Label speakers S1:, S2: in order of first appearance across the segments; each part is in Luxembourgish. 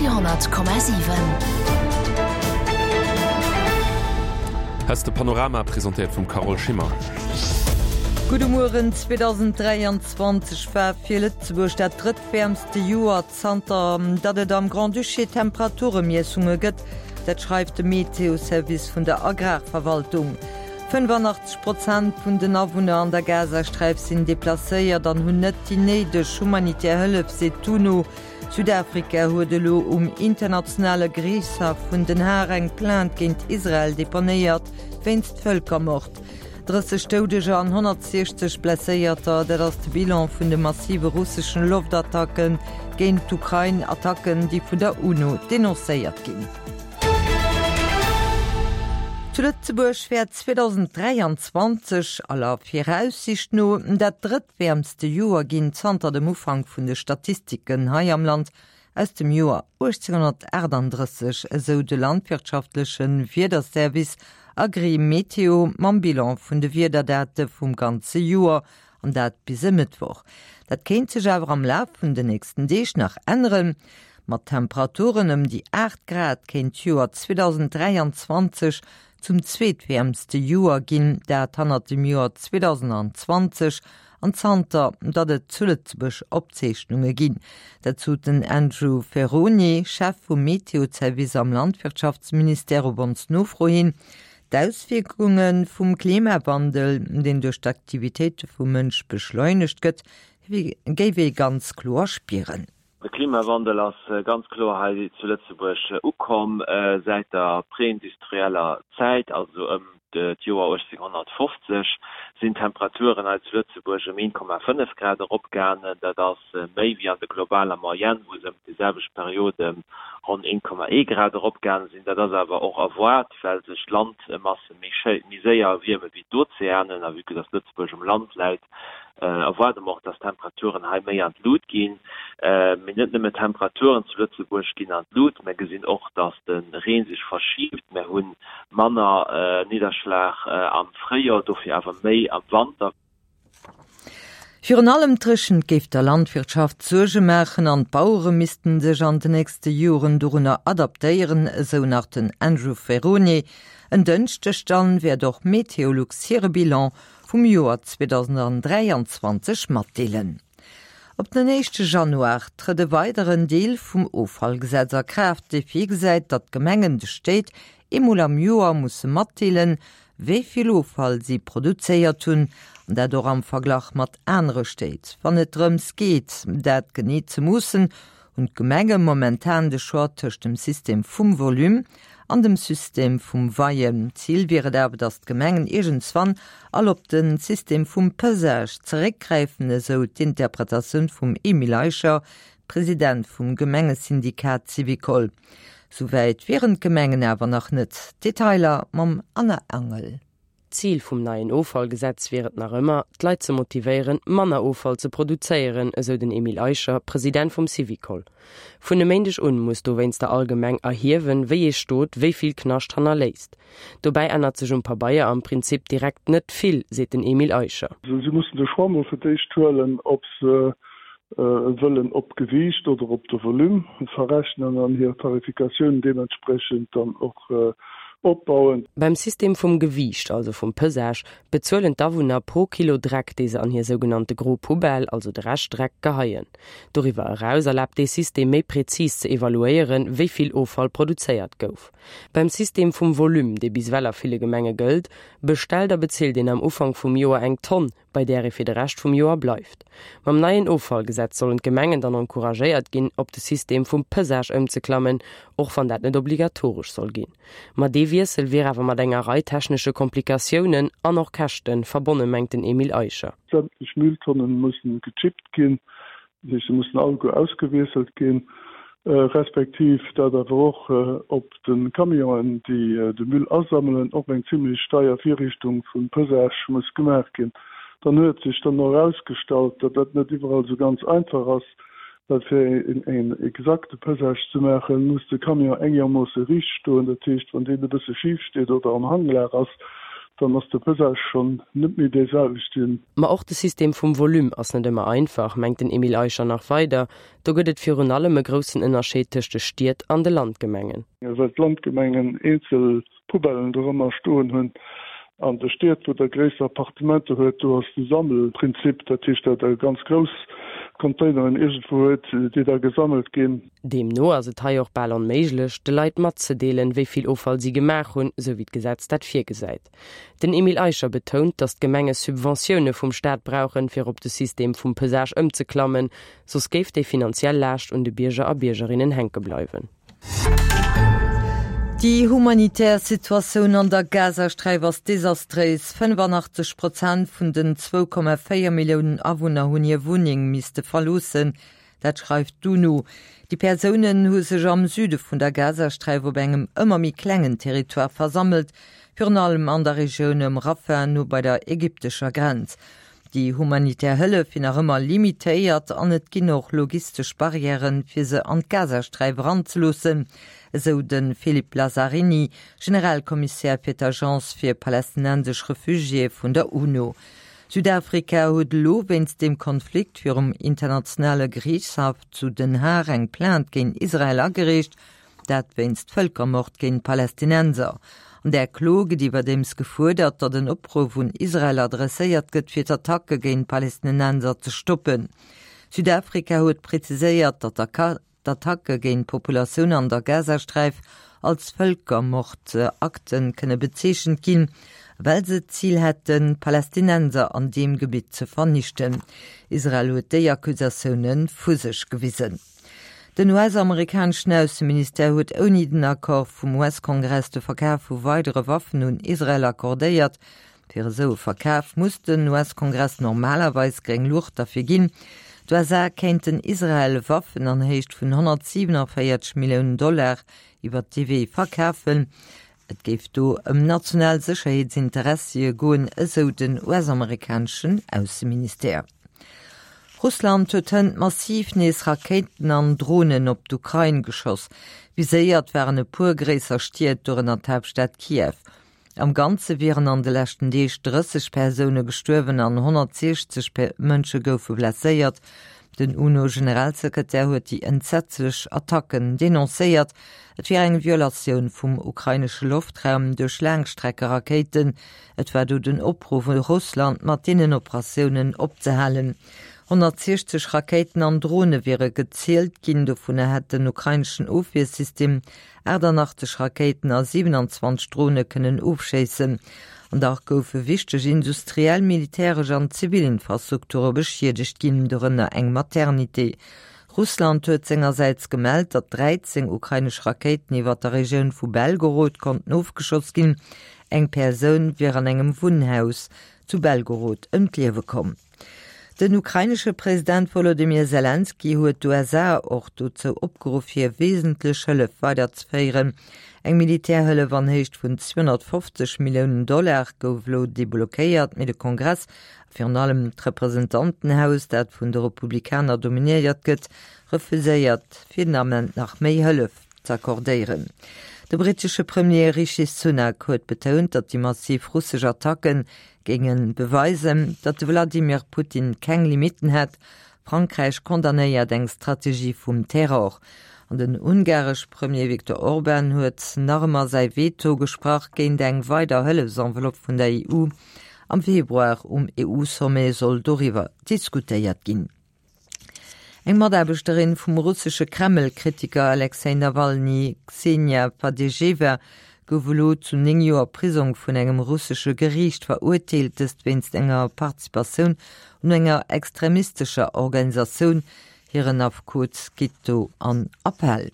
S1: Radio 10,7.
S2: Hest de Panorama presentéiert vum Carole Schimmer.
S3: Gudde Mueren, 2023 war fir Lëtzebuerg dat drëttwäermste Joer zanter datt et am Grand-Duché Temperaturemiessunge gëtt. Dat schreift de Meteoservice vun der Agrarverwaltung. 85 Prozent vun den Awunner an der Gazasträif sinn deplacéiert an hunn net déi néideg humanitär Hëllef, seet d'UNO. Südafrika huet elo um internationale Geriichtshaff vun Den Haag eng Plainte géint Israel deponéiert, wéinst Vëlkermord. 30 Doudeger an 160 Blesséierter, dat ass de Bilan vun de massive russeschen Loftattacke géint d'Ukrain, Attacken, déi vun der UNO denoncéiert ginn. Zu Lëtzebuerg wäert 2023 aller Viraussicht no dat drëttwäermste Joer ginn zanter dem Ufank vun de Statistiken hei am Land aus dem Joer 1838, esou de landwirtschaftleche Wiederservice Agrimeteo mam Bilan vun de Wiederdate vum ganze Joer, an dat bis e Mëttwoch. Dat kéint sech awer am Laf vun den nächsten Deeg nach änneren. Mat Temperaturen ëm déi 8 Grad kéint d'Joer 2023 zum zweetwäermste Joer ginn, dat hannert dem Joer 2020 an zanter datt et zu Lëtzebuerg Opzeechnunge ginn. Dat sot den Andrew Ferrone, Chef vum Meteozervice am Landwirtschaftsministère op ons Nofro hin. D'Auswierkunge vum Klimawandel, deen duerch d'Aktivitéite vum Mënsch beschleunegt gëtt, géif ee ganz kloer spieren.
S4: De Klimawandel ass ganz kloer hei zu Lëtzebuerg ukomm säit der preindustrieller Zäit, also ëm d'Joer 1850 sinn d'Temperaturen hei zu Lëtzebuerg ëm 1,5 Grad eropgaangen. Dat ass méi wéi an der globaler Moyenne, wou se ëm déi selwecht Period ëm ronn 1,1 Grad eropgaange sinn. Dat ass awer och erwaart, well sech d'Landmasse méi séier erwierme wéi d'Ozeanen. A vue que dass Lëtzebuerg um Land läit, erwaarde mer och, dass d'Temperaturen hei méi an d'Lut ginn. Mee net nëmme d'Temperaturen zu Lëtzebuerg ginn an d'Lut, mer gesinn och, dass de Reen sech verschiibt. Mer hu manner Nidderschlag am Fréijoer, dofir awer méi am Wanter.
S3: Virun allem d'Dréchent géif der Landwirtschaft Suerge maachen an d'Bauere missten sech an de nächste Joren dorunner adaptéieren, esou nach den Andrew Ferrone. En Dënschdeg dann wäert och Meteolux hire Bilan vum Joer 2023 matdeelen. Op den éischte Januar trëtt e weideren Deel vum Offallgesetz a Kraaft, dee virgesäit, datt d'Gemengen de Stéit eemol am Joer musse matdeelen, wéi vill Offall si produzéiert hunn, an dat och am Verglach mat anere Stéit. Wann et drëms geet, dat genee ze moossen, hunn d'Gemenge momentan de Choix tëscht dem System vum Volume an dem System vum Weien. Zil wier et awer, datt d'Gemengen iergendswann all op de System vum Pesage zeréckgräifen, esou d'Interpretatioun vum Emile Eicher, President vum Gemengesyndikat Syvicol. Souwäit wieren d'Gemengen awer nach net. Detailer mam Anna Angel.
S5: D'Zil vum neien Offallgesetz wier et nach ëmmer, d'Leit ze motivéieren, manner Offall ze produzéieren, esou den Emile Eicher, President vum Syvicol. Vun e Méindeg un muss dowéinster all Gemeng erhiewen, wéi ee Stot wéi vill Knascht hannerléisst. Dobäi ännert sech um Pabeier am Prinzip direkt net vill, seet den Emile Eicher.
S6: Si mussen de Choix mol fir d'éischt huelen, ob se wëllen op d'Gewiicht oder op de Volume verrechnen an hir Tarifikatioun deementsprechend dann och opbauen.
S5: Beim System vum Gewiicht, also vum Pesage, bezuelen d'Awunner pro Kilo Dreck, dee se an hir sougenannte gro Poubelle, also de Reschtdreck, geheien. Doriwwer eraus erlaabt dee System méi prezis ze evaluéieren, wéi vill Offall produzéiert gouf. Beim System vum Volume, dee bis ewell a ville Gemenge gëllt, bestellt a bezilt een am Ufank vum Joer eng Tonn, bei där ee fir de Rescht vum Joer bleift. Mam neien Offallgesetz sollen d'Gemengen dann encouragéiert ginn, op de System vum Pesage ëmzeklammen, och wann dat net obligatoresch soll ginn. Ma dee Wiessel wier awer mat enger Rei technesche Komplikatiounen an och Käschte verbonne mengt den Emile Eicher.
S6: Sämtlech Mülltonnen mussen gechippt ginn, Dat heescht, se mussen alleguer ausgewiesselt ginn, respektiv dat awer och op de Camionen, déi de Müll asammelen, och eng zimlech deier Virrichtung vum Pesage muss gemaach ginn. Dann huet sech dann och erausgestallt, datt dat net iwwerall esou ganz einfach ass, well fir en exakte Pesage ze maachen, muss de Camion engermoosse riicht stoen. Dat heescht, wann deen e bësse schif steet oder am Hanglag ass, Dann ass de Pesage schonn net méi dee selwechten.
S5: Ma och de System vum Volume ass net ëmmer einfach, mengt den Emile Eicher nach weider. Do gëtt et virun allem e groussen Ënnerscheed tëscht de Stied an de Landgemengen.
S6: Well d'Landgemengen eenzel Poubellen dorëmmer stoen hunn. An de Stied, wou der gréisser Appartementer huet, do ass de Sammelprinzip, dat heescht, datt der ganz grouss Containeren iergendwou huet, déi da gesammelt ginn.
S5: Deemno ass et hei och bal onméiglech, de Leit matzedeelen, wéi vill Offall si gemaach hunn, sou wéi d'Gesetz dat virgesäit. Den Emile Eicher betount, datt d'Gemenge Subventioune vum Staat brauchen, fir op de System vum Pesage ëmzeklammen, soss géif déi finanziell Laascht un de Bierger a Biergerinnen hänke bleiwen.
S3: Déi humanitär Situatioun an der Gazasträif ass desastréis. 85 Prozent vun den 2,4 Milliounen Awunner hunn hir Wunneng misste verloossen. Dat schreift d'UNO. Déi Persounen hu sech am Süde vun der Gazasträif op engem ëmmer méi klengen Territoire versammelt, virun allem an der Regioun ëm Rafah, no bei der ägyptescher Grenz. Déi humanitär Hëllef wier nach ëmmer limitéiert an et ginn och logistesch Barrièren, fir se an d'Gazasträif eranzeloossen, esou de Philippe Lazzarini, Generalkommissär fir d'Agence fir palästinensesch Refugiéë vun der UNO. Südafrika huet elo wéinst deem Konflikt virum internationale Geriichtshaff zu Den Haag eng Plainte géint Israel agereecht, dat wéinst Vëlkermord géint Palästinenser. An där Klo gëtt iwwerdeems gefuerdert, datt en Opruff un Israel adresséiert gëtt, fir d'Attacke géint Palästinenser ze stoppen. Südafrika huet preziséiert, datt d'Attacke géint d'Populatioun an der Gazasträif als Vëlkermordakte kënne bezeechent ginn, well se d'Zil hätten, d'Palästinenser an deem Gebitt ze vernichten. Israel huet déi Accusatioune vu sech gewisen. Den US-amerikaneschen Ausseministère huet ouni den Accord vum US-Kongress de Verkaf vu weidere Waffen un Israel accordéiert. Fir esou e Verkaf muss den US-Kongress normalerweis gréng Luucht derfir ginn. D'USA kéinten Israel Waffen an Héicht vun 147 Milliounen Dollar iwwer dee Wee verkafen. Et géif do ëm national Sécherheetsinteressie goen, esou den US-amerikaneschen Ausseministère. Russland huet hënt massiv nees Rakéiten an Dronen op d'Ukrain geschoss. Viséiert waren e puer gréisser Stied, dorënner d'Haaptstad Kiew. Am Ganze wieren an de leschten Deeg 30 Persoune gestuerwen an 160 Mënsche goufe blesséiert. Den UNO-Generalsekretär huet déi entsetzlech Attacken denoncéiert. Et wier eng Violatioun vum ukrainesche Loftraum duerch Laangstreckerakéiten. Et war do den Opruff u Russland, mat deenen Operatiounen opzehalen. 160 Rakéiten an Drone wiere gezielt ginn, dovunner hätt den ukraineschen Ofwiersystem 88 Rakéiten a 27 Drone kënnen ofschéissen. An dach goufe wichteg industriell, militäresch an zivil Infrastrukture beschiedegt ginn, dorënner eng Maternité. Russland huet sengersäits gemellt, datt 13 ukrainesch Rakéiten iwwer der Regioun vu Belgorod konnten ofgeschoss ginn. Eng Persoun wier an engem Wunnhaus zu Belgorod ëm d'Liewe komm. Den ukrainesche President Wolodymyr Selenskyj huet d'USA och dozou opgeruff, hir wesentlech Hëllef weiderzeféieren. Eng Militärhëllef an Héicht vun 250 Milliounen Dollar gouf elo deblockéiert, mee de Kongress a virun allem d'Representantenhaus, dat vun de Republikaner dominéiert gëtt, refuséiert fir den Ament nach méi Hëllef z'accordéieren. De brittesche Premier Rishi Sunak huet betount, datt déi massiv russesch Attacken Géinge beweisen, datt de Wladimir Putin keng Limitten hätt. Frankräich condamnéiert eng Strategie vum Terror. An den ungaresch Premier Viktor Orban huet nach ëmmer säi Veto gesprach géint eng weider Hëllefsenveloppe vun der EU. Am Februar um EU-Sommet soll doriwwer diskutéiert ginn. Eng Mataarbechterin vum russesche Kreml-Kritiker Alexej Nawalny, Ksenia Fadejewa, gouf elo zu 9 Joer Prisong vun engem russesche Geriicht verurteelt, dëst wéinst enger Participatioun un enger extremistescher Organisatioun. Hiren Affekot geet do an Appell.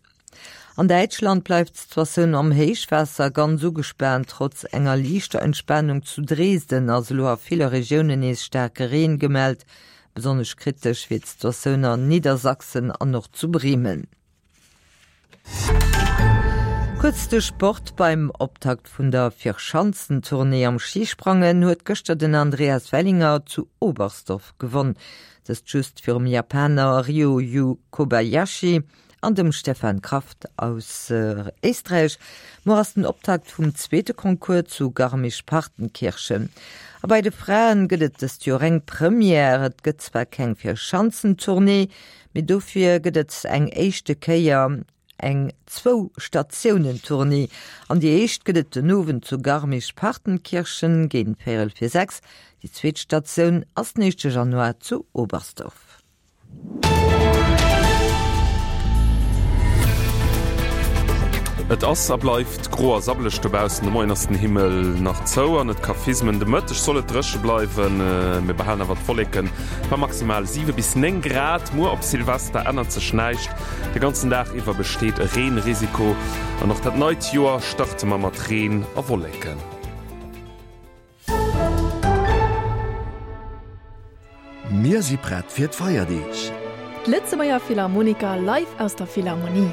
S3: An Däitschland bleift d'Situatioun am Héichwaasser ganz ugespaant. Trotz enger liichter Entspanung zu Dresden ass elo a ville Regiounen nees staarke Reen gemellt. Besonnesch kritesch wier d'Situatioun an Niedersachsen an och zu Bremen. Kuerz de Sport, Beim Optakt vun der Vierschanzentournée am Schisprangen huet gëschter den Andreas Wellinger zu Oberstdorf gewonn. Dëst just virum Japaner Ryoyu Kobayashi. an dem Stefan Kraft aus Éisträich. Muer ass den Optakt vum zweete Concours zu Garmisch-Partenkirchen. A bei de Fraen gëtt et dëst Joer eng Première. Et gëtt zwar keng Vierschanzentournée, mee dofir gëtt et eng éischte Kéier eng Zwou-Statiounen-Tournée. An déi éischt gëtt et den Owend zu Garmisch-Partenkirchen géint véierel vir 6. Déi zweet Statioun ass den éischte Januar zu Oberstdorf.
S2: Et ass a bleift gro a sabbeleg dobaussen. De Moien ass den Himmel nach zou an et ka fismen. De Mëtteg soll et dréche bleiwen, mir behalen awer d'Wolleken bei maximal 7 bis 9 Grad. Muer op Silvester ännert sech näischt, de ganzen Dag iwwer besteet e Reenrisiko an och dat neit Joer starte mer mat Reen a Wolleken.
S7: Mir si prett fir d'Feierdeeg!
S8: D'Lëtzebuerger Philharmoniker live aus der Philharmonie.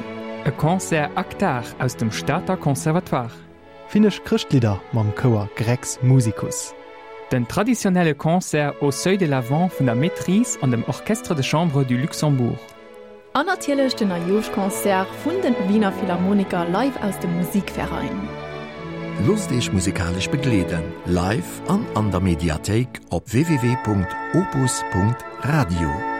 S9: E Concert Actar aus dem Stater Conservatoire.
S10: Finnesch Chrëschtlidder mam Chouer Grex Musicus.
S9: Den traditionnelle Concert Au seuil de l'Avent vun der Maîtrise an dem Orchestre de Chambre du Luxembourg.
S8: An natierlech den Neijooschconcert vun den Wiener Philharmoniker live aus dem Musikverein.
S7: Loosst Iech musikalesch begleeden, live an an der Mediathéik op www.opus.radio.